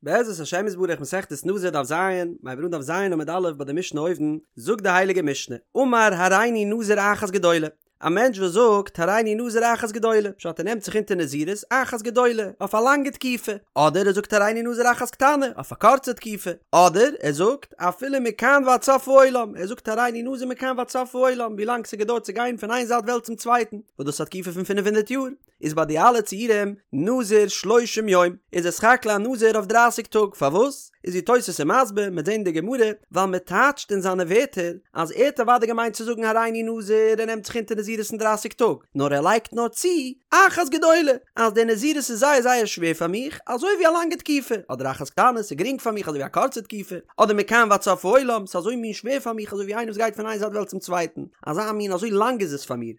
בעזרת השם יתברך מסכת נזיר דף ז, מ'הייבט אן דף ז עמוד א' ביי די משנה אויבן, זאגט די הייליגע משנה, אמר הריני נזיר אחת גדולה, א מענטש וואס זאגט הריני נזיר אחת גדולה, פשט ער נעמט זיך אונטער נזירות אחת גדולה, אויף א לאנגע תקופה, אדער ער זאגט הריני נזיר אחת קטנה, אויף א קורצע תקופה, אדער ער זאגט אפילו מכאן ועד סוף העולם, ער זאגט הריני נזיר מכאן ועד סוף העולם, ווי לאנג ס'געדויערט צו גיין פון איין זייט וועלט צום צווייטן, וואס דאס איז א תקופה פון פינף הונדערט יאר. איז ביי די אלע ציורים נזיר שלושים יום, איז ער סך הכל א נזיר אויף דרייסיג טאג, פארוואס? איז ווי תוס' איז מסביר, מ'עט זען די גמרא, ווייל מ'טייטשט אין זיינע ווערטער אז ער האט אוודאי געמיינט צו זאגן הריני נזיר ער נעמט זיך אונטער נזירות אין דרייסיג טאג, נאר ער לייגט נאר צו אחת גדולה, אז די נזירות איז זייער זייער שווער פאר מיך, אזוי ווי א לאנגע תקופה, אדער אחת קטנה, ס'איז גרינג פאר מיך אזוי ווי א קורצע תקופה, אדער מכאן ועד סוף העולם, ס'איז אזוי מין שווער פאר מיך אזוי ווי איינער וואס גייט פון איין זייט וועלט צום צווייטן, אזא מין אזוי לאנג איז עס פאר מיר.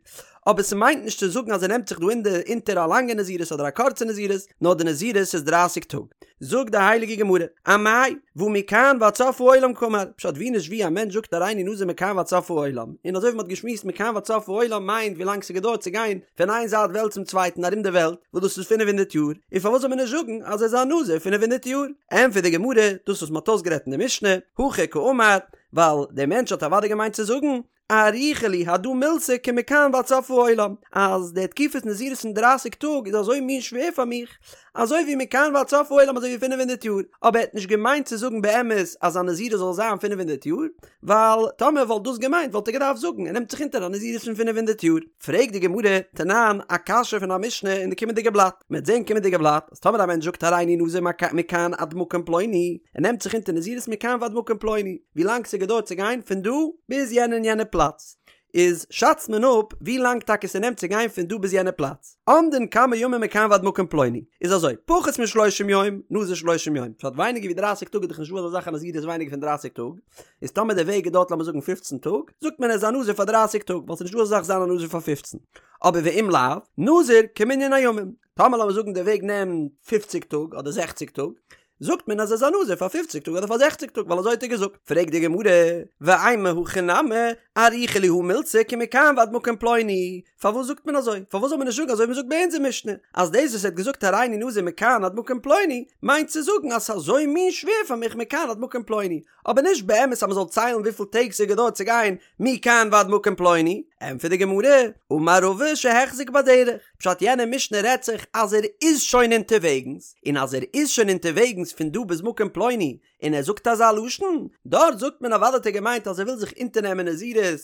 אבער ס'מיינט נישט צו זאגן אז ער נעמט זיך דא אין די אונטער א לאנגע נזירות אדער א קורצע נזירות, נאר די נזירות איז דרייסיג טאג. זאגט די הייליגע גמרא, אמאי, והא מכאן ועד סוף העולם קאמר, פשט ווי נישט ווי א מענטש זאגט הריני נזיר מכאן ועד סוף העולם, און אזוי ווי מ'האט געשמועסט מכאן ועד סוף העולם מיינט ווי לאנג ס'געדויערט צו גיין פון איין זייט וועלט צום צווייטן ארום די וועלט, וואס דאס איז פינף הונדערט יאר, און פארוואס זאל מען נישט זאגן אז ער איז א נזיר פינף הונדערט יאר? ענטפערט די גמרא, דאס וואס מ'האט אויסגערעדט אין די משנה, הכי קאמר, ווייל דער מענטש האט אוודאי געמיינט צו זאגן, אריכא לי הדא מילתא כמכאן ועד סוף העולם, אז די תקופת נזירות פון דרייסיג טאג איז אזוי מין שווער פאר מיך, אזוי ווי מכאן ועד סוף העולם אזוי ווי פינף הונדערט יאר, אבער ער האט נישט געמיינט צו זאגן באמת אז זיין נזירות זאל זיין פינף הונדערט יאר, ווייל טאמער ער וואלט דאס געמיינט וואלט ער געדארפט זאגן ער נעמט זיך אונטער א נזירות פון פינף הונדערט יאר. פרעגט די גמרא, תנן, א קשיא פון א משנה אין די קומענדיגע בלאט, מען וועט זען קומענדיגע בלאט, אז טאמער א מענטש זאגט הריני נזיר מכאן עד מקום פלוני, ער נעמט זיך אונטער נזירות מכאן ועד מקום פלוני, ווי לאנג ס'געדויערט צו גיין פון דא ביז יענע און יענע פלאץ, איז שאצט מען אפ ווי לאנג טאקע ס'נעמט צו גיין פון דא ביז יענע פלאץ. אומדין כמה ימים מכאן ועד מקום פלוני, איז אזוי, פחות משלושים יום, נזיר שלושים יום, פשט ווייניגער ווי דרייסיג טאג איז דאך נישטא אזא זאך א נזירות ווייניגער פון דרייסיג טאג, איז טאמער די וועג געדויערט לאמיר זאגן פופצן טאג, זאגט מען ער איז א נזיר פאר דרייסיג טאג, ווייל ס'איז נישטא אזא זאך זיין א נזיר פאר פופצן. אבער ואם לאו, נזיר כמנין הימים. טאמער לאמיר זאגן די וועג נעמט פופציג טאג אדער זעכציג טאג, זאגט מען אז ער איז א נזיר פאר פופציג טאג אדער פאר זעכציג טאג ווייל אזוי האט ער געזאגט. פרעגט די גמרא, ואימא הכי נמי, אריכא לי הא מילתא כמכאן ועד מקום פלוני, פארוואס זאגט מען אזוי? פארוואס זאל מען נישט זאגן אזוי ווי מען זאגט ביי אונזער משנה, אז דאס וואס ער האט געזאגט הריני נזיר מכאן עד מקום פלוני, מיינט צו זאגן אז ס'איז אזוי מין שווער פאר מיך מכאן עד מקום פלוני, אבער נישט באמת אז מען זאל ציילן וויפיל טעג ס'געדויערט צו גיין מכאן ועד מקום פלוני, ענטפערט די גמרא, אמר רבא שהחזיק בדרך, פשט יענע משנה רעדט זיך אז ער איז שוין אונטערוועגנס, און אז ער איז שוין אונטערוועגנס פון דא ביז מקום פלוני, און ער זאגט אזא לשון, דארט זאגט מען אוודאי האט ער געמיינט אז ער וויל זיך אונטערנעמען נזירות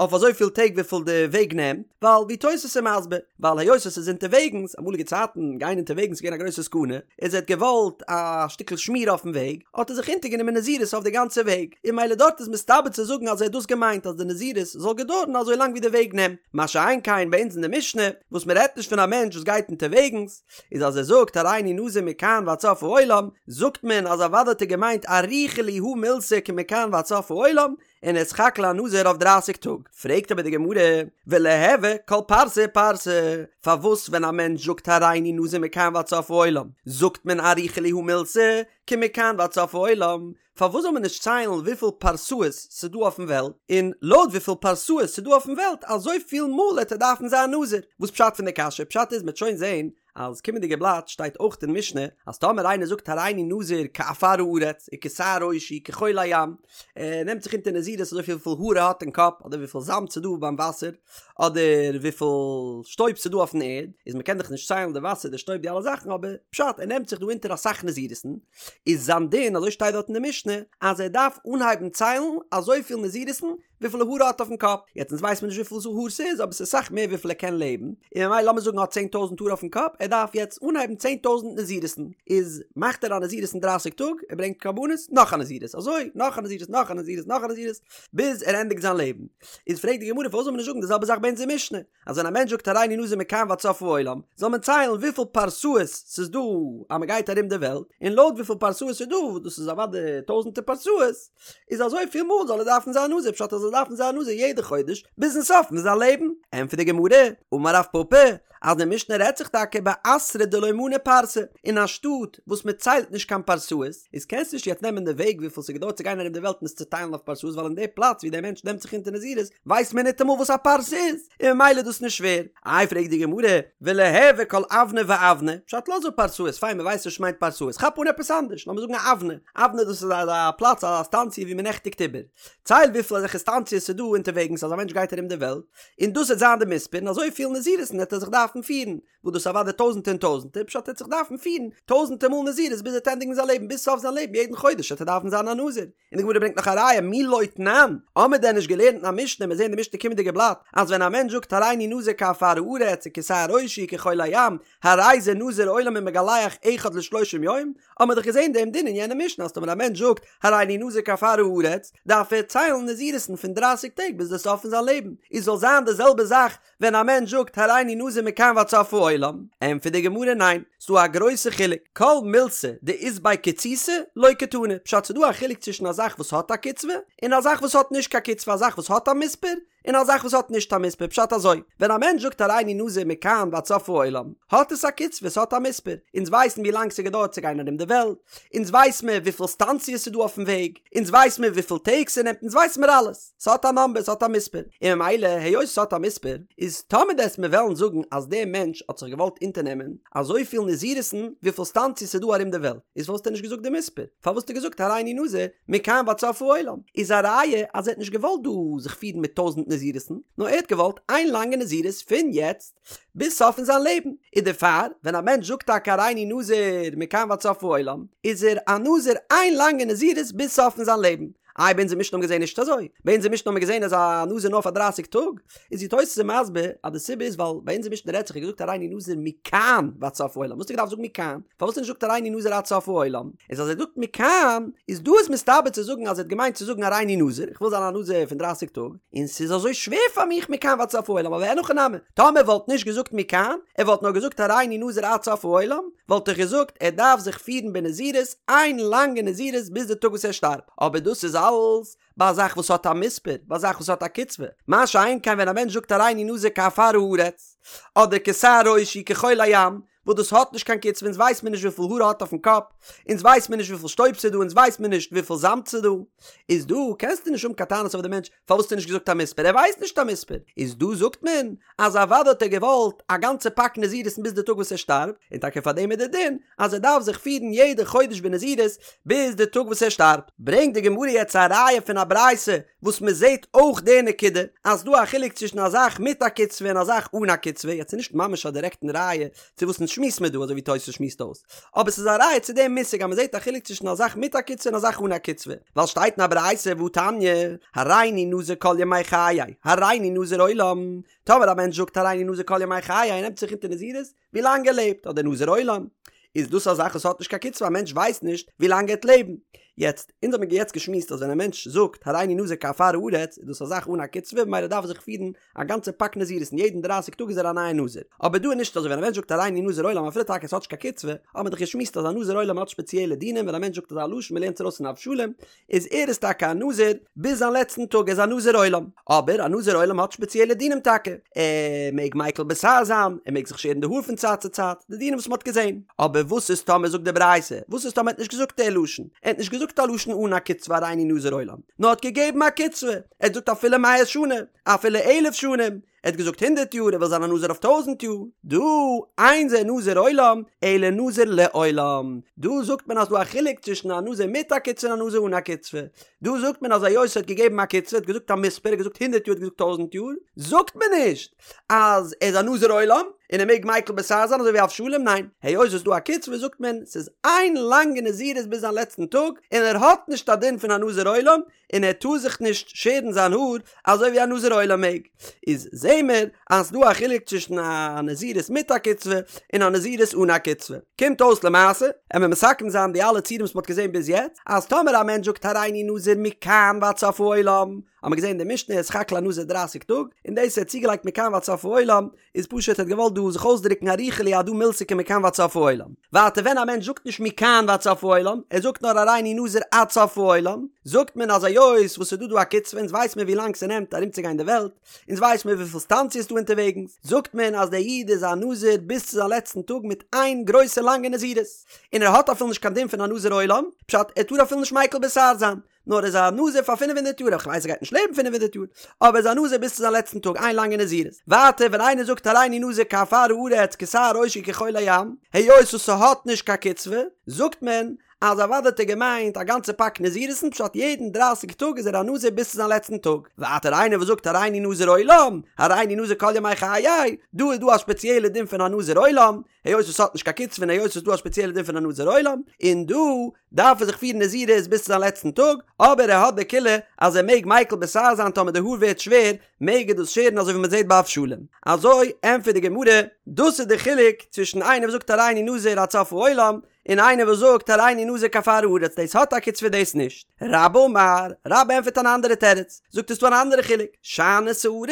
אויף אזויפיל טעג וויפיל די וועג נעמט, ווייל ווי תוס' איז מסביר, ווייל היות עס איז אונטערוועגנס, אמאליגע צייטן גיין אונטערוועגנס איז געווען א גרויסע סכנה, איז ער האט געוואלט א שטיקל שמירה אויפן וועג, האט ער זיך אונטערגענומען נזירות אויף די גאנצע וועג, און ממילא דארט איז מסתבר צו זאגן אז ער האט דאס געמיינט אז די נזירות זאל געדויערן אזוי לאנג ווי די וועג נעמט, מה שאין כן ביי אונז אין די משנה, וואס מען רעדט נישט פון א מענטש וואס גייט אונטערוועגנס, איז אז ער זאגט הריני נזיר מכאן ועד סוף העולם, זאגט מען אז אוודאי האט ער געמיינט אריכא לי הא מילתא כמכאן ועד סוף העולם, און ער איז סך הכל א נזיר אויף דרייסיג טאג. פרעגט אבער די גמרא, וליהוי כל פרסה ופרסה, פארוואס ווען א מענטש זאגט הריני נזיר מכאן ועד סוף העולם, זאגט מען אריכא לי הא מילתא כמכאן ועד סוף העולם, פארוואס זאל מען נישט ציילן וויפיל פרסאות ס'דא אויפן וועלט, און לויט וויפיל פרסאות ס'דא אויפן וועלט אזוי פיל מאל העט ער דארפן זיין נזיר? וואס פשט פון די קשיא? פשט איז מ'עט שוין זעהן אז קומענדיגע בלאט שטייט אויך אין משנה אז טאמער איינער זאגט הריני נזיר כעפר הארץ וכשער ראשי כחול הים ער נעמט זיך אונטער נזירות אזוי פיל וויפיל האר ער האט אין קאפ אדער וויפיל זאמד ס'דא ביים וואסער אדער וויפיל שטויב ס'דא אויפן ערד איז מ'קען דאך נישט ציילן די וואסער די שטויב די אלע זאכן אבער פשט ער נעמט זיך דא אונטער אסאך נזירות'ן איז זיין דין, אזוי שטייט דארט אין די משנה, אז ער דארף אנהייבן ציילן אזויפיל נזירות'ן וויפיל האר ער האט אויפן קאפ, יעצט אונז ווייסט מען נישט וויפיל האר ס'איז אבער ס'איז אסאך מער וויפיל ער קען לעבן, און ממילא לאמיר זאגן ער האט צען טויזנט האר אויפן קאפ, ער דארף יעצט אנהייבן 10,000 נזירות'ן, איז מאכט ער א נזירות אין דרייסיג טאג, ער ברענגט קרבנות, נאך א נזירות, אזוי נאך א נזירות נאך א נזירות נאך א נזירות, ביז ער ענדיגט זיין לעבן. איז פרעגט די גמרא פארוואס זאל מען נישט זאגן די זעלבע זאך ביי אונזער משנה, אז ווען א מענטש זאגט הריני נזיר מכאן ועד סוף העולם, זאל מען ציילן וויפיל פרסאות ס'איז דא אז מ'גייט ארום די וועלט, און לויט וויפיל פרסאות ס'איז דא, וואס דאס איז אוודאי טויזנטער פרסאות, איז אזוי פיל מאל זאל ער דארפן זיין נזיר, פשט אז ער זאל דארפן זיין נזיר יעדע חודש ביזן סוף פון זיין לעבן. ענטפערט די גמרא, אמר רב פפא, אז די משנה רעדט זיך טאקע באתרא דלא מנו פרסי, אין א שטאט וואס מען ציילט נישט קיין פרסאות, איז קענסט נישט יעצט נעמען די וועג וויפיל ס'געדויערט צו גיין ארום די וועלט און עס צוטיילן אויף פרסאות ווייל אין די פלאץ ווי דער מענטש נעמט זיך אונטער נזירות ווייסט מען ניטאמאל וואס א פרסה איז, און ממילא איז דאס נישט שווער. איי פרעגט די גמרא, וליהוי כל אבנא ואבנא, פשט לאז אפ פרסאות, פיין מען ווייסט נישט וואס מיינט פרסאות, כאפ אן עפעס אנדערש, לאמיר זאגן א אבנא, אבנא דאס איז א פלאץ א סטאנציע ווי מען נעכטיגט איבער, צייל וויפיל אזעלכע סטאנציעס ס'איז דא אונטערוועגנס אז א מענטש גייט ארום די וועלט, און דאס וועט זיין די מספר, און אזוי פיל נזירות'ן וועט ער זיך דארפן פירן, וואס דאס אוודאי טויזענטע און טויזענטער, פשט ער וועט זיך דארפן פירן טויזענטער מאל נזירות ביז ער וועט ענדיגן זיין לעבן, ביז סוף זיין לעבן יעדן חודש וועט ער דארפן זיין א נזיר. און די גמרא ברענגט נאך א ראיה מי לא תנן, האמיר דען נישט געלערנט אין א משנה, מיר זעהן די משנה קומענדיגע בלאט, אז ווען א מענטש זאגט הריני נזיר כעפר הארץ וכשער ראשי כחול הים, הרי זה נזיר עולם ומגלח אחד לשלושים יום, האמיר דאך געזעהן דעם דין אין יענע משנה אז טאמער א מענטש זאגט הריני נזיר כעפר הארץ, דארף ער ציילן נזירות'ן פון דרייסיג טעג ביז די סוף פון זיין לעבן, איז זאל זיין די זעלבע זאך ווען א מענטש זאגט הריני נזיר מכאן ועד סוף העולם, ענטפערט די גמרא ניין, ס'דא א גרויסע חילוק, כל מילתא דאית ביה קיצותא לא קתני, פשט ס'דא א חילוק צווישן א זאך וואס האט א קצבה, און א זאך וואס האט נישט קיין קצבה, א זאך וואס האט א מספר, און א זאך וואס האט נישט א מספר, פשט אזוי, ווען א מענטש זאגט הריני נזיר מכאן ועד סוף העולם, האט עס א קצבה, ס'האט א מספר, אונז ווייסן ווי לאנג ס'געדויערט צו גיין ארום די וועלט, אונז ווייס מיר וויפיל סטאנציעס ס'דא אויפן וועג, אונז ווייס מיר וויפיל טעג ס'נעמט, אונז ווייס מיר אלעס. ס'האט א נאמבער, ס'האט א מספר, און ממילא היות ס'האט א מספר, איז טאמער דו וועסט מיר וועלן זאגן אז דער מענטש האט זיך געוואלט אונטערנעמען אזויפיל נזירות'ן וויפיל סטאנציעס ס'איז דא ארום די וועלט, איז פארוואס האט ער נישט געזאגט די מספר? פארוואס האט ער געזאגט הריני נזיר מכאן ועד סוף העולם? איז א ראיה אז ער האט נישט געוואלט דא זיך פירן מיט טויזענט נזירות'ן, נאר ער האט געוואלט איין לאנגע נזירות פון יעצט ביז סוף פון זיין לעבן, איז דערפאר ווען א מענטש זאגט טאקע הריני נזיר מכאן ועד סוף העולם, איז ער א נזיר איין לאנגע נזירות ביז סוף פון זיין לעבן. איי ביי אונזער משנה האבן געזען נישט אזוי? ביי אונזער משנה האבן מיר געזען אז א נזיר נאר פאר דרייסיג טאג, איז די תוס' מסביר אז די סיבה איז ווייל ביי אונזער משנה רעדט זיך ער האט געזאגט הריני נזיר מכאן ועד סוף העולם, וואס האט ער געדארפט זאגן מכאן? פארוואס האט ער נישט געזאגט הריני נזיר עד סוף העולם? איז אז ער זאגט מכאן איז דא איז מסתבר צו זאגן אז ער האט געמיינט צו זאגן הריני נזיר, איך וויל זיין א נזיר פון דרייסיג טאג, און ס'איז אזוי שווער פאר מיך מכאן ועד סוף העולם, אבער אין הכי נמי, טאמער ער וואלט נישט געזאגט מכאן, ער וואלט נאר געזאגט הריני נזיר עד סוף העולם, וואלט איך געזאגט ער דארף זיך פירן בנזירות איין לאנגע נזירות ביז די טאג וואס ער שטארבט, אבער דאס איז אלס ביי א זאך וואס האט א מספר, ביי א זאך וואס האט א קצבה, מה שאין כן ווען א מענטש זאגט הריני נזיר כעפר הארץ, אדער כשער ראשי כחול הים, וואס דאס האט נישט קיין קצבה, אונז ווייס מיר נישט וויפיל האר ער האט אויפן קאפ, אונז ווייס מיר נישט וויפיל שטויב ס'איז דא, אונז ווייס מיר נישט וויפיל זאמד ס'איז דא, איז דא קענסטו נישט האבן קיין טענות אויף די מענטש פארוואס האסטו נישט געזאגט א מספר, ער ווייסט נישט א מספר, איז דא זאגט מען אז אוודאי האט ער געוואלט א גאנצע פאק נזירות'ן ביז די טאג וואס ער שטארבט, און טאקע פאר דעם איז די דין אז ער דארף זיך פירן יעדע חודש בנזירות ביז די טאג וואס ער שטארבט. ברענגט די גמרא יעצט א ראיה פון א ברייתא וואס מען זעט אויך די נקודה אז ס'דא א חילוק צווישן א זאך מיט א קצבה און א זאך אן א קצבה, יעצט איז נישט ממש א דירעקטן ראיה צו וואס אונז שמועסן מיר דא אזוי ווי תוס' שמועסט אויס, אבער ס'איז א ראיה צו דעם מושג אז מען זעט א חילוק צווישן א זאך מיט א קצבה און א זאך אן א קצבה, ווייל שטייט אין א ברייתא והתניא, הריני נזיר כל ימי חיי, הריני נזיר עולם, טאמער א מענטש זאגט הריני נזיר כל ימי חיי און נעמט זיך אונטער נזירות, ווי לאנג ער לעבט, אדער נזיר עולם, איז דאס א זאך וואס האט נישט קיין קצבה, א מענטש ווייסט נישט ווי לאנג ער וועט לעבן. יעצט, אונז האבן יעצט געשמועסט אז ווען א מענטש זאגט הריני נזיר כעפר הארץ, איז דאס א זאך אן א קצבה, ממילא דארף ער זיך פירן א גאנצע פאק נזירות און יעדן דרייסיג טאג איז ער א נייע נזיר. אבער דא איז נישט אזוי, ווען א מענטש זאגט הריני נזיר עולם אפילו טאקע עס האט נישט קיין קצבה, האט מען דאך געשמועסט אז א נזיר עולם האט שפעציעלע דינים, ווען א מענטש זאגט אזא לשון, מ'לערנט עס ארויס פון אבשלום, איז ער איז טאקע א נזיר ביז זיין לעצטן טאג, ער איז א נזיר עולם, אבער א נזיר עולם האט שפעציעלע דינים טאקע, ער מעג מיקל בתער זיין, ער מעג זיך שערן די האר פון צייט צו צייט, די דינים וואס מען האט געזען. אבער וואס איז טאמער זאגט די ברייתא, וואס איז טאמער ער האט נישט געזאגט די לשון, ער האט נישט געזאגט א לשון אן א קצבה הריני נזיר עולם, נאר האט געגעבן א קצבה, ער האט געזאגט אפילו מאה שנה, אפילו אלף שנים, ער האט געזאגט הונדערט יאר, ער וויל זיין א נזיר אויף טויזנט יאר, דא אין זה נזיר עולם, אלא נזיר לעולם, דא זאגט מען אז דא א חילוק צווישן א נזיר מיט א קצבה און א נזיר אן א קצבה, דא זאגט מען אז היות ער האט געגעבן א קצבה, ער האט געזאגט א מספר, ער האט געזאגט הונדערט יאר, ער האט געזאגט טויזנט יאר, זאגט מען נישט אז ער איז א נזיר עולם, און ער מעג מיקל בתער זיין אזוי ווי אבשלום, ניין, היות עס איז דא א קצבה זאגט מען ס'איז איין לאנגע נזירות ביז זיין לעצטן טאג, און ער האט נישט א דין פון א נזיר עולם, און ער טאר זיך נישט שערן זיין האר אזוי ווי א נזיר עולם מעג, איז זעהן מיר אז ס'דא א חילוק צווישן א נזירות מיט א קצבה און א נזירות אן א קצבה. קומט אויס למעשה, עמיר מסכם זיין די אלע ציורים וואס מ'האט געזעהן ביז יעצט, אז טאמער א מענטש זאגט הריני נזיר מכאן ועד סוף העולם, האמיר געזעהן אין די משנה איז סך הכל א נזיר דרייסיג טאג, און דאס ער האט צוגעלייגט מכאן ועד סוף העולם, איז פשוט ער האט געוואלט דא זיך אויסדרוקן אריכא לי הדא מילתא כמכאן ועד סוף העולם. ווייטער ווען א מענטש זאגט נישט מכאן ועד סוף העולם, ער זאגט נאר הריני נזיר עד סוף העולם, זאגט מען אז היות וואס ס'איז דא דא א קצבה אונז ווייס מיר ווי לאנג ס'נעמט ארומצוגיין די וועלט, אונז ווייס מיר וויפיל סטאנציעס ס'דא אונטערוועגנס, זאגט מען אז דער איד איז א נזיר ביז צו זיין לעצטן טאג מיט איין גרויסע לאנגע נזירות, און ער האט אפילו נישט קיין דין פון א נזיר עולם, פשט ער טאר אפילו נישט מיקל בשער זיין, נאר ער איז א נזיר פאר פינף הונדערט יאר, איך ווייס ער גייט נישט לעבן פינף הונדערט יאר, אבער ער איז א נזיר ביז צו זיין לעצטן טאג, איין לאנגע נזירות. ווייטער ווען איינער זאגט הריני נזיר כעפר הארץ כשער ראשי כחול הים, היות וואס ס'האט נישט קיין קצבה, זאגט מען אז אוודאי האט ער געמיינט א גאנצע פאק נזירות'ן פשט יעדן דרייסיג טאג איז ער א נזיר ביז צו זיין לעצטן טאג. ווייטער איינער וואס זאגט הריני נזיר עולם, הריני נזיר כל ימי חיי, דא איז דא א ספעציעלע דין פון א נזיר עולם, היות עס האט נישט קיין קצבה און היות עס איז דא א ספעציעלע דין פון א נזיר עולם, און דא דארף ער זיך פירן נזירות ביז צו זיין לעצטן טאג, אבער ער האט די קולא אז ער מעג מיקל בשער זיין טאמער די האר ווערט שווער מעג ער דאס שערן אזוי ווי מען זעט ביי אבשלום. אזוי ענטפערט די גמרא, דאס איז די חילוק צווישן איינער וואס זאגט הריני נזיר עד סוף העולם, און איינער וואס זאגט הריני נזיר כעפר הארץ דאס האט א קצבה דאס נישט. רבה אמר, רבה ענטפערט אן אנדערע תירוץ, זאגט עס דא אן אנדערע חילוק, שאני שערות,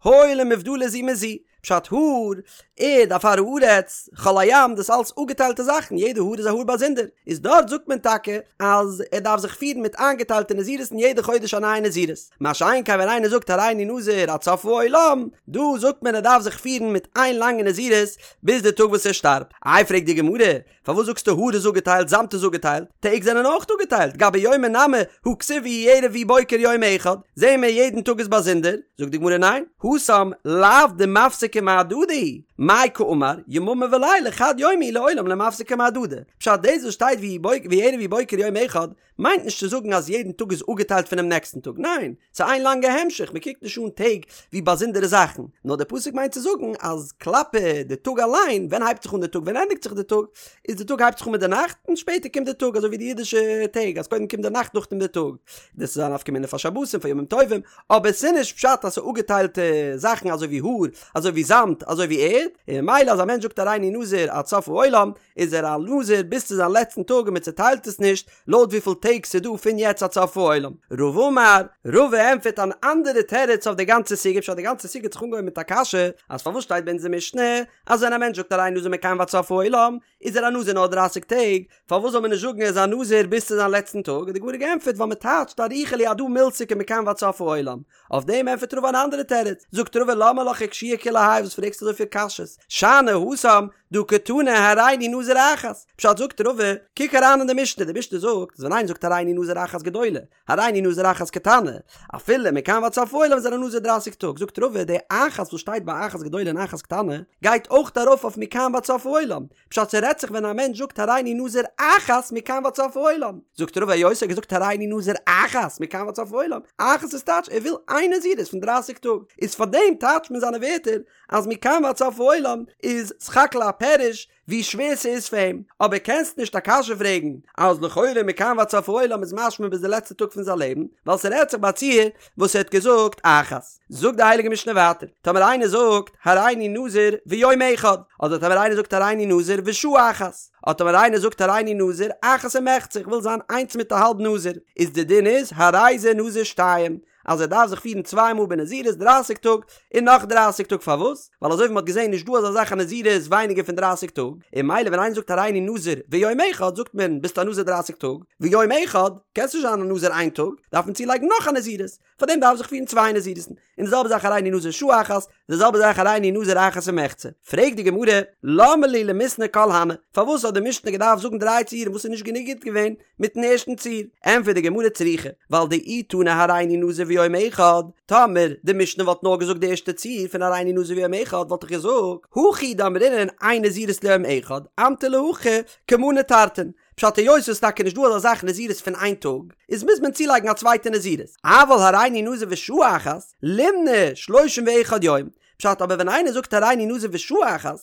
הואיל ומובדלות זו מזו, פשט האר, ערד, עפר הארץ, חול הים, דאס אלס אפגעטיילטע זאכן, יעדע האר איז א האר באזונדער, איז דארט זאגט מען טאקע אז ער דארף זיך פירן מיט איינגעטיילטע נזירות און יעדע חודש א נייע נזירות, מה שאין כן ווען איינער זאגט הריני נזיר עד סוף העולם, דא זאגט מען ער דארף זיך פירן מיט איין לאנגע נזירות ביז די טאג וואס ער שטארבט. איי פרעגט די גמרא, פארוואס זאגסטו האר איז אפגעטיילט זאמד איז אפגעטיילט, טעג זענען אויך אפגעטיילט, גבי יומי נמי הא כתיב ויהי ערב ויהי בוקר יום אחד, זעהן מיר יעדן טאג איז באזונדער, זאגט די גמרא ניין, התם לאו דמפסקי מהדדי, מאי קאמר, יממא ולילה חד יומא הוא לעולם לא מפסקי מהדדי, פשט דאס וואס שטייט ויהי ערב ויהי בוקר יום אחד, מיינט נישט צו זאגן אז יעדן טאג איז אפגעטיילט פונעם נעקסטן טאג, ניין, ס'איז איין לאנגע המשך, מען קוקט נישט אן טעג ווי באזונדערע זאכן, נאר דער פסוק מיינט צו זאגן אז כלפי די טאג אליין, ווען הייבט זיך אן די טאג ווען ענדיגט זיך די טאג, איז די טאג הייבט זיך אן מיט די נאכט און שפעטער קומט די טאג, אזוי ווי די אידישע טעג אז קודם קומט די נאכט נאכדעם די טאג, דאס איז א נפקא מינה פאר שבתים פאר ימים טובים, אבער ס'איז נישט פשט אז ס'איז אפגעטיילטע זאכן אזוי ווי האר, אזוי ווי זאמד, אזוי ווי ערד, און ממילא אז א מענטש זאגט הריני נזיר עד סוף העולם, איז ער א נזיר ביז צו זיין לעצטן טאג און מען צעטיילט עס נישט לויט וויפיל טעג ס'איז דא פון יעצט עד סוף העולם. רבא אמר, רבא ענטפערט אן אנדערע תירוץ אויף די גאנצע סוגיא, פשט די גאנצע סוגיא האט זיך אנגעהויבן מיט א קשיא אז פארוואס שטייט ביי אונזער משנה אז ווען א מענטש זאגט הריני נזיר מכאן ועד סוף העולם איז ער א נזיר נאר דרייסיג טעג, פארוואס זאל מען נישט זאגן ער איז א נזיר ביז צו זיין לעצטן טאג, האט די גמרא געענטפערט ווייל מען טייטשט אריכא לי הדא מילתא כמכאן ועד סוף העולם, אויף דעם ענטפערט רבא אן אנדערע תירוץ, זאגט רבא למה לך אקשויי כולי האי וואס פרעגסטו אזויפיל קשיות, שאני התם דהא קתני הריני נזיר אחת, פשט זאגט רבא, קוק אריין אין די משנה, די משנה זאגט אז ווען איינער זאגט הריני נזיר אחת גדולה, הריני נזיר אחת קטנה, אפילו מכאן ועד סוף העולם איז ער א נזיר דרייסיג טאג, זאגט רבא די אחת וואס שטייט ביי אחת גדולה און אחת קטנה, גייט אויך ארויף אויף מכאן ועד סוף העולם, פשט ס'רעדט זיך ווען א מענטש זאגט הריני נזיר אחת מכאן ועד סוף העולם, זאגט רבא היות ער האט געזאגט הריני נזיר אחת מכאן ועד סוף העולם, אחת איז טייטש ער וויל איין נזירות פון דרייסיג טאג, איז פארדעם טייטשט מען זיינע ווערטער אז מכאן ועד סוף העולם איז סך הכל א פירוש ווי שווער ס'איז פאר אים, אבער קענסט נישט א קשיא פרעגן אז לכאורה מכאן ועד סוף העולם איז משמע ביז די לעצטע טאג פון זיין לעבן, ווייל ס'רעדט זיך ביי א ציור וואס ער האט געזאגט אחת. זאגט די הייליגע משנה ווייטער, טאמער איינער זאגט הריני נזיר ויום אחד, אדער טאמער איינער זאגט הריני נזיר ושעה אחת, אדער טאמער איינער זאגט הריני נזיר אחת ומחצה, איך וויל זיין איינס מיט א האלב נזיר, איז די דין איז הרי זה נזיר שתיים, אז ער דארף זיך פירן צוויי מאל בנזירות דרייסיג טאג און נאך דרייסיג טאג פארוואס? ווייל אזוי ווי מ'האט געזען נישט דא אזא זאך א נזירות ווייניגער פון דרייסיג טאג, און ממילא ווען איינער זאגט הריני נזיר ויום אחד זאגט מען ביסט א נזיר דרייסיג טאג, ויום אחד קענסט נישט זיין א נזיר איין טאג, דארף מען צולייגן נאך א נזירות, פארדעם דארף זיך פירן צוויי נזירות'ן, און די זעלבע זאך הריני נזיר שעה אחת, די זעלבע זאך הריני נזיר אחת ומחצה. פרעגט די גמרא, למה לי למיתני כל הני, פארוואס האט די משנה געדארפט זאגן דריי ציורים וואס איז נישט גענוג גוט געווען מיטן ערשטן ציור? ענטפערט די גמרא צריכא, ווייל דאי תנא הריני נזיר ויום אחד, טאמער די משנה וואלט נאר געזאגט די ערשטע ציור פון הריני נזיר ויום אחד וואלט איך געזאגט, הכא הוא דאמרינן אין נזירות ליום אחד, אמטו להכי כמנה תרתין, פשט היות ס'איז טאקע נישט דא אזא זאך נזירות פון איין טאג, איז מוז מען צולייגן א צווייטע נזירות. אבל הריני נזיר ושעה אחת, לימני שלושים ואחד יום. פשט אבער ווען איינער זאגט הריני נזיר ושעה אחת,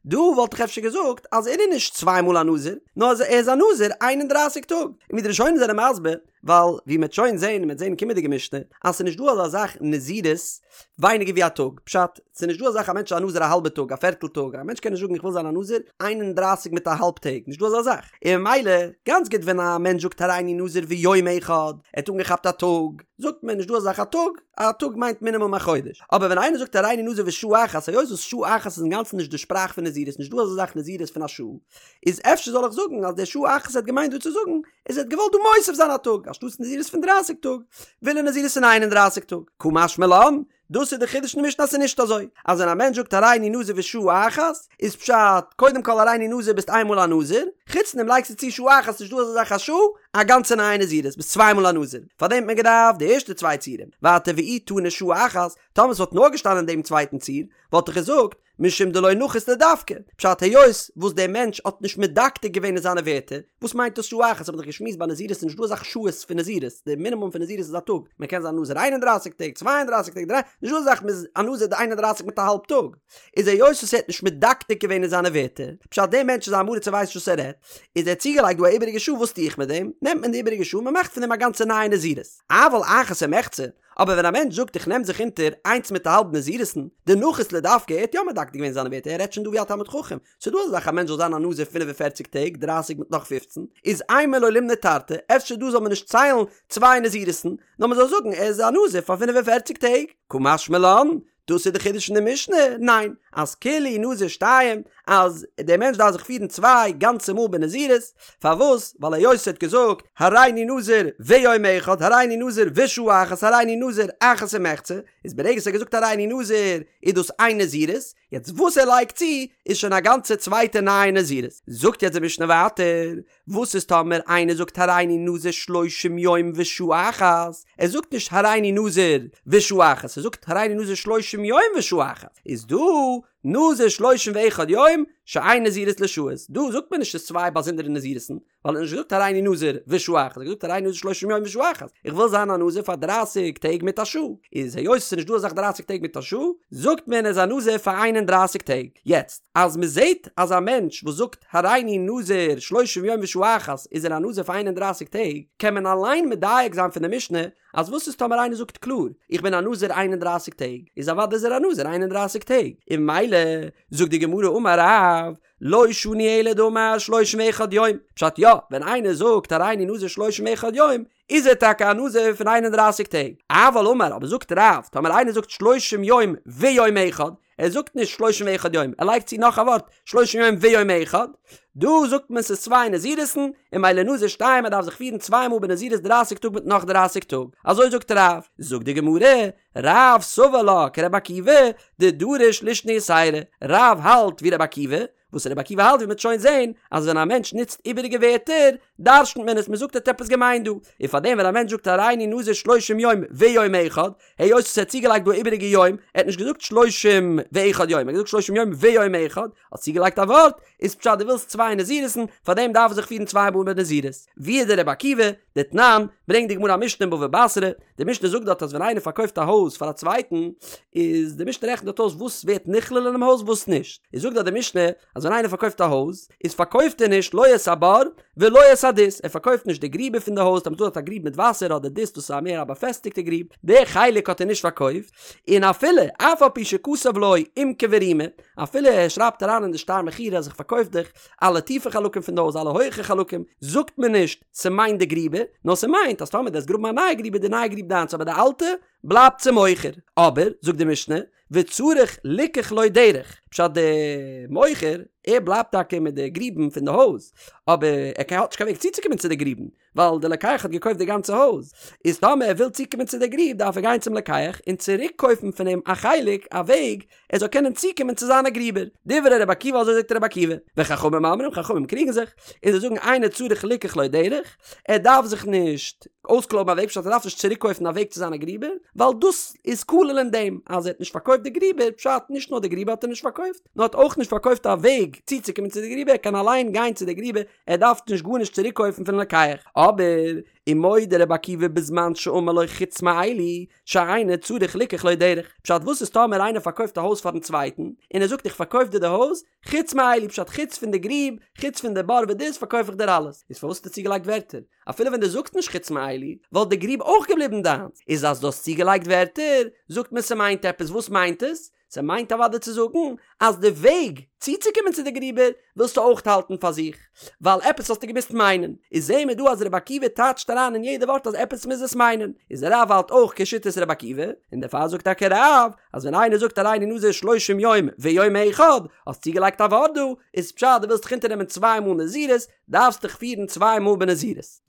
דא וואלט איך אפשר געזאגט אז ער איז נישט צוויי מאל א נזיר, נאר ער איז א נזיר איין און דרייסיג טאג. און ווי די ראשונים זענען מסביר, ווייל ווי מ'עט שוין זעהן און מ'עט זעהן אין קומענדיגע משנה, אז ס'איז נישט דא אזא זאך נזירות ווייניגער ווי א טאג, פשט, ס'איז נישט דא אזא זאך א מענטש איז א נזיר א האלבע טאג, א פערטל טאג, א מענטש קען נישט זאגן איך וויל זיין א נזיר איין און דרייסיג מיט א האלב טעג, נישט דא אזא זאך, און ממילא, גאנץ גוט ווען א מענטש זאגט הריני נזיר ויום אחד, ער האט אנגעכאפט א טאג, זאגט מען נישט דא אזא זאך א טאג, א טאג מיינט מינימום א חודש, אבער ווען איינער זאגט הריני נזיר ושעה אחת, היות וואס שעה אחת איז אינגאנצן נישט די שפראך. זאך פון נזירות, נישט דא אזא זאך נזירות פון א שעה, איז אפשר זאל איך זאגן אז דער שעה אחת האט געמיינט דא צו זאגן איז ער האט געוואלט דא מוסיף זיין א טאג, אנשטאטס נזירות פון דרייסיג טאג, וויל ער נזירות פון איין און דרייסיג טאג. קא משמע לן, דאס איז די חידוש אין די משנה אז ס'איז נישט אזוי אז ווען א מענטש זאגט הריני נזיר ושעה אחת, איז פשט, קודם כל הריני נזיר ביסט איין מאל א נזיר, חוץ דעם לייגסטו צו שעה אחת נישט דא אזא זאך א שעה, א גאנצע נייע נזירות, ביסט צוויי מאל א נזיר, פארדעם האט מען געדארפט די ערשטע צוויי ציורים, ווייטער ואי תנא שעה אחת, טאמער ס'וואלט נאר געשטאנען אין דעם צווייטן ציור, וואלט איך געזאגט, משום דלא נחית לדווקא, פשט היות וואס דער מענטש האט נישט מדקדק געווען אין זיינע ווערטער, וואס מיינט דאס שעה אחת האט מען דאך געשמועסט ביי נזירות איז נישט דא אזאך שעות פון נזירות, די מינימום פון נזירות איז א טאג, מען קען זיין נזיר איין און דרייסיג טעג, צוויי און דרייסיג טעג, דריי, נישט דא אזאך מען איז א נזיר די איין און דרייסיג מיט א האלב טאג, איז היות וואס ער האט נישט מדקדק געווען אין זיינע ווערטער, פשט דער מענטש איז א עם הארץ ער ווייסט נישט וואס ער רעדט, איז ער האט צוגעלייגט דא א איבעריגע שעה וואס טו איך מיט דעם, נעמט מען די איבעריגע שעה מען מאכט פון דעם א גאנצע נייע נזירות, אבל אחת ומחצה, אבער ווען א מענטש זאגט איך נעם זיך אונטער איינס מיט א האלב נזירות'ן, דנחית לדווקא, ער האט יא מדקדק געווען זיינע ווערטער, ער רעדט שוין דא ווי א תלמיד חכם, ס'איז דא אזא זאך א מענטש זאל זיין א נזיר 45 טעג, 30 מיט נאך 15, איז אימא לא לימני תרתי, אפשר דא זאל מען נישט ציילן צוויי נזירות'ן, נאר מען זאל זאגן ער איז א נזיר פאר 45 טעג. קא משמע לן, דאס איז די חידוש אין די משנה? ניין, אז כולהו נזיר שתיים, אז דער מענטש דארף זיך פירן צוויי גאנצע מאל בנזירות, פארוואס? ווייל היות ער האט געזאגט הריני נזיר ויום אחד, הריני נזיר ושעה אחת, הריני נזיר אחת ומחצה, איז ברגע ער האט געזאגט הריני נזיר איז דאס איין נזירות, יעצט וואס ער לייגט צו איז שוין א גאנצע צווייטע נייע נזירות. זאגט יעצט די משנה ווייטער, וואס איז טאמער איינער זאגט הריני נזיר שלושים יום ושעה אחת, ער זאגט נישט הריני נזיר ושעה אחת, ער זאגט הריני נזיר שלושים יום ושעה אחת, איז דא נזיר שלושים ואחד יום שאין נזירות לשעות, דא זאגט מען נישט ס'איז צוויי באזונדערע נזירות'ן, ווייל ער האט נישט געזאגט הריני נזיר ושעה אחת, ער האט געזאגט הריני נזיר שלושים יום ושעה אחת, איך וויל זיין א נזיר פאר דרייסיג טעג מיט א שעה, איז היות ס'איז נישט דא אזאך דרייסיג טעג מיט א שעה, זאגט מען ער איז א נזיר פאר איין און דרייסיג טעג, יעצט אז מ'זעט אז א מענטש וואס זאגט הריני נזיר שלושים יום ושעה אחת איז ער א נזיר פאר איין און דרייסיג טעג, קען מען אליין מדייק זיין פון די משנה אז וואס איז טאמער איינער זאגט קלאר איך בין א נזיר איין און דרייסיג טעג, איז אוודאי איז ער א נזיר איין און דרייסיג טעג, און ממילא זאגט די גמרא אמר רב לא שנו אלא דאמר שלושים ואחד יום, פשט יא, ווען איינער זאגט הריני נזיר שלושים ואחד יום, איז ער טאקע א נזיר פון איין און דרייסיג טעג, אבל אמר אבער זאגט רב, טאמער איינער זאגט שלושים יום ויום אחד, ער זאגט נישט שלושים ואחד יום, ער לייגט צו נאך א ווארט, שלושים יום ויום אחד, דא זאגט מען ס'איז צוויי נזירות'ן, און ממילא נזיר שתיים ער דארף זיך פירן צוויי מאל בנזירות דרייסיג טאג מיט נאך דרייסיג טאג, אזוי זאגט רב, זאגט די גמרא, רב סבר לה כרבי עקיבא, דדריש לישנא יתירא, רב האלט ווי רבי עקיבא, וואס רבי עקיבא האלט ווי מ'וועט שוין זעהן, אז ווען א מענטש נוצט איבעריגע ווערטער, דרש'נט מען עס, מ'זאגט ער האט עפעס געמיינט דא, און פארדעם ווען א מענטש זאגט הריני נזיר שלושים יום ויום אחד, היות עס האט צוגעלייגט דא א איבעריגע יום, ער האט נישט געזאגט שלושים ואחד יום, ער האט געזאגט שלושים יום ויום אחד, האט צוגעלייגט א ווארט, איז פשט דו ווילסט צוויי נזירות'ן, פארדעם דארף ער זיך פירן צוויי מאל בנזירות. ווי איז דער רבי עקיבא? דתנן, ברענגט די גמרא א משנה אין בבא בתרא, די משנה זאגט דארט אז ווען איינער פארקויפט א הויז פאר א צווייטן, איז די משנה רעכנט דארט אויס וואס ווערט נכלל אינעם הויז וואס נישט, איז זאגט דארט די משנה אז ווען איינער פארקויפט א הויז, איז פארקויפט ער נישט לא את הבור ולא את הדות, ער פארקויפט נישט די גריבער פון די הויז, טאמער ס'איז דא דארט א גריב מיט וואסער אדער דות דאס איז א מער א באפעסטיגטע גריב, די חלק האט ער נישט פארקויפט, און אפילו אף על פי שכתב לו עומקא ורומא, אפילו ער שרייבט אריין אין די שטר מכירה אז איך פארקויף דיך אלע טיפע חלקים פון די הויז אלע הויכע חלקים, זאגט מען נישט ס'מיינט די גריבער, נאר ס'מיינט אז טאמער דו וועסט גראבן א נייע גריב איז די נייע גריב דיינס אבער די אלטע בלייבט צום מוכר. אבער, זאגט די משנה, וצריך ליקח לו דרך, פשט די מוכר, ער בלייבט טאקע מיט די גריבן פון די הויז, אבער ער האט נישט קיין וועג צוצוקומען צו די גריבן, ווייל די לוקח האט געקויפט די גאנצע הויז, איז טאמער ער וויל צוקומען צו די גריב דארף ער גיין צום לוקח און צוריק קויפן פון אים א חלק, א וועג, ער זאל קענען צוקומען צו זיינע גריבער. דברי רבי עקיבא אזוי זאגט רבי עקיבא. וחכמים אומרים, חכמים קריגן זיך, און זיי זאגן אינו צריך ליקח לו דרך, ער דארף זיך נישט אויסקלויבן א וועג, פשט ער דארף נישט צוריק קויפן א וועג צו זיינע גריבער, ווייל דאס איז כולל אין דעם אז ער האט נישט פארקויפט די גריבער, פשט נישט נאר די גריבער האט ער נישט פארקויפט, נאר האט אויך נישט פארקויפט א וועג צוצוקומען צו די גריבער, ער קען אליין גיין צו די גריבער, ער דארף נישט גארנישט צוריק קויפן פון לוקח. אבער, ומודה רבי עקיבא בזמן שאמר לו חוץ מאלו, שאינו צריך ליקח לו דרך. פשט וואס איז טאמער איינער פארקויפט א הויז פארן צווייטן, און ער זאגט איך פארקויף דיר די הויז, חוץ מאלו פשט חוץ פון די גריב, חוץ פון די בור ודות פארקויף איך דיר אלעס. איז פארוואס האסטו צוגעלייגט ווערטער? אפילו ווען דו זאגסט נישט חוץ מאלו, וואלט די גריב אויך געבליבן דיינס. איז אז דו האסט צוגעלייגט ווערטער, זאגט מען ס'מיינט עפעס, וואס מיינט עס? ס'מיינט אוודאי צו זאגן אז די וועג צוצוקומען צו די גריבער ווילסטו אויך האלטן פאר זיך, ווייל עפעס האסטו געמוזט מיינען. איז זעהן מיר דא אז רבי עקיבא טייטשט אריין אין יעדע ווארט אז עפעס מוז עס מיינען. איז רב האלט אויך כשיטת רבי עקיבא, און דערפאר זאגט טאקע רב אז ווען איינער זאגט הריני נזיר שלושים יום ויום אחד, האסט צוגעלייגט א ווארט דא, איז פשט דו ווילסט דיך אונטערנעמען צוויי מאל נזירות, דארפסט דיך פירן צוויי מאל בנזירות.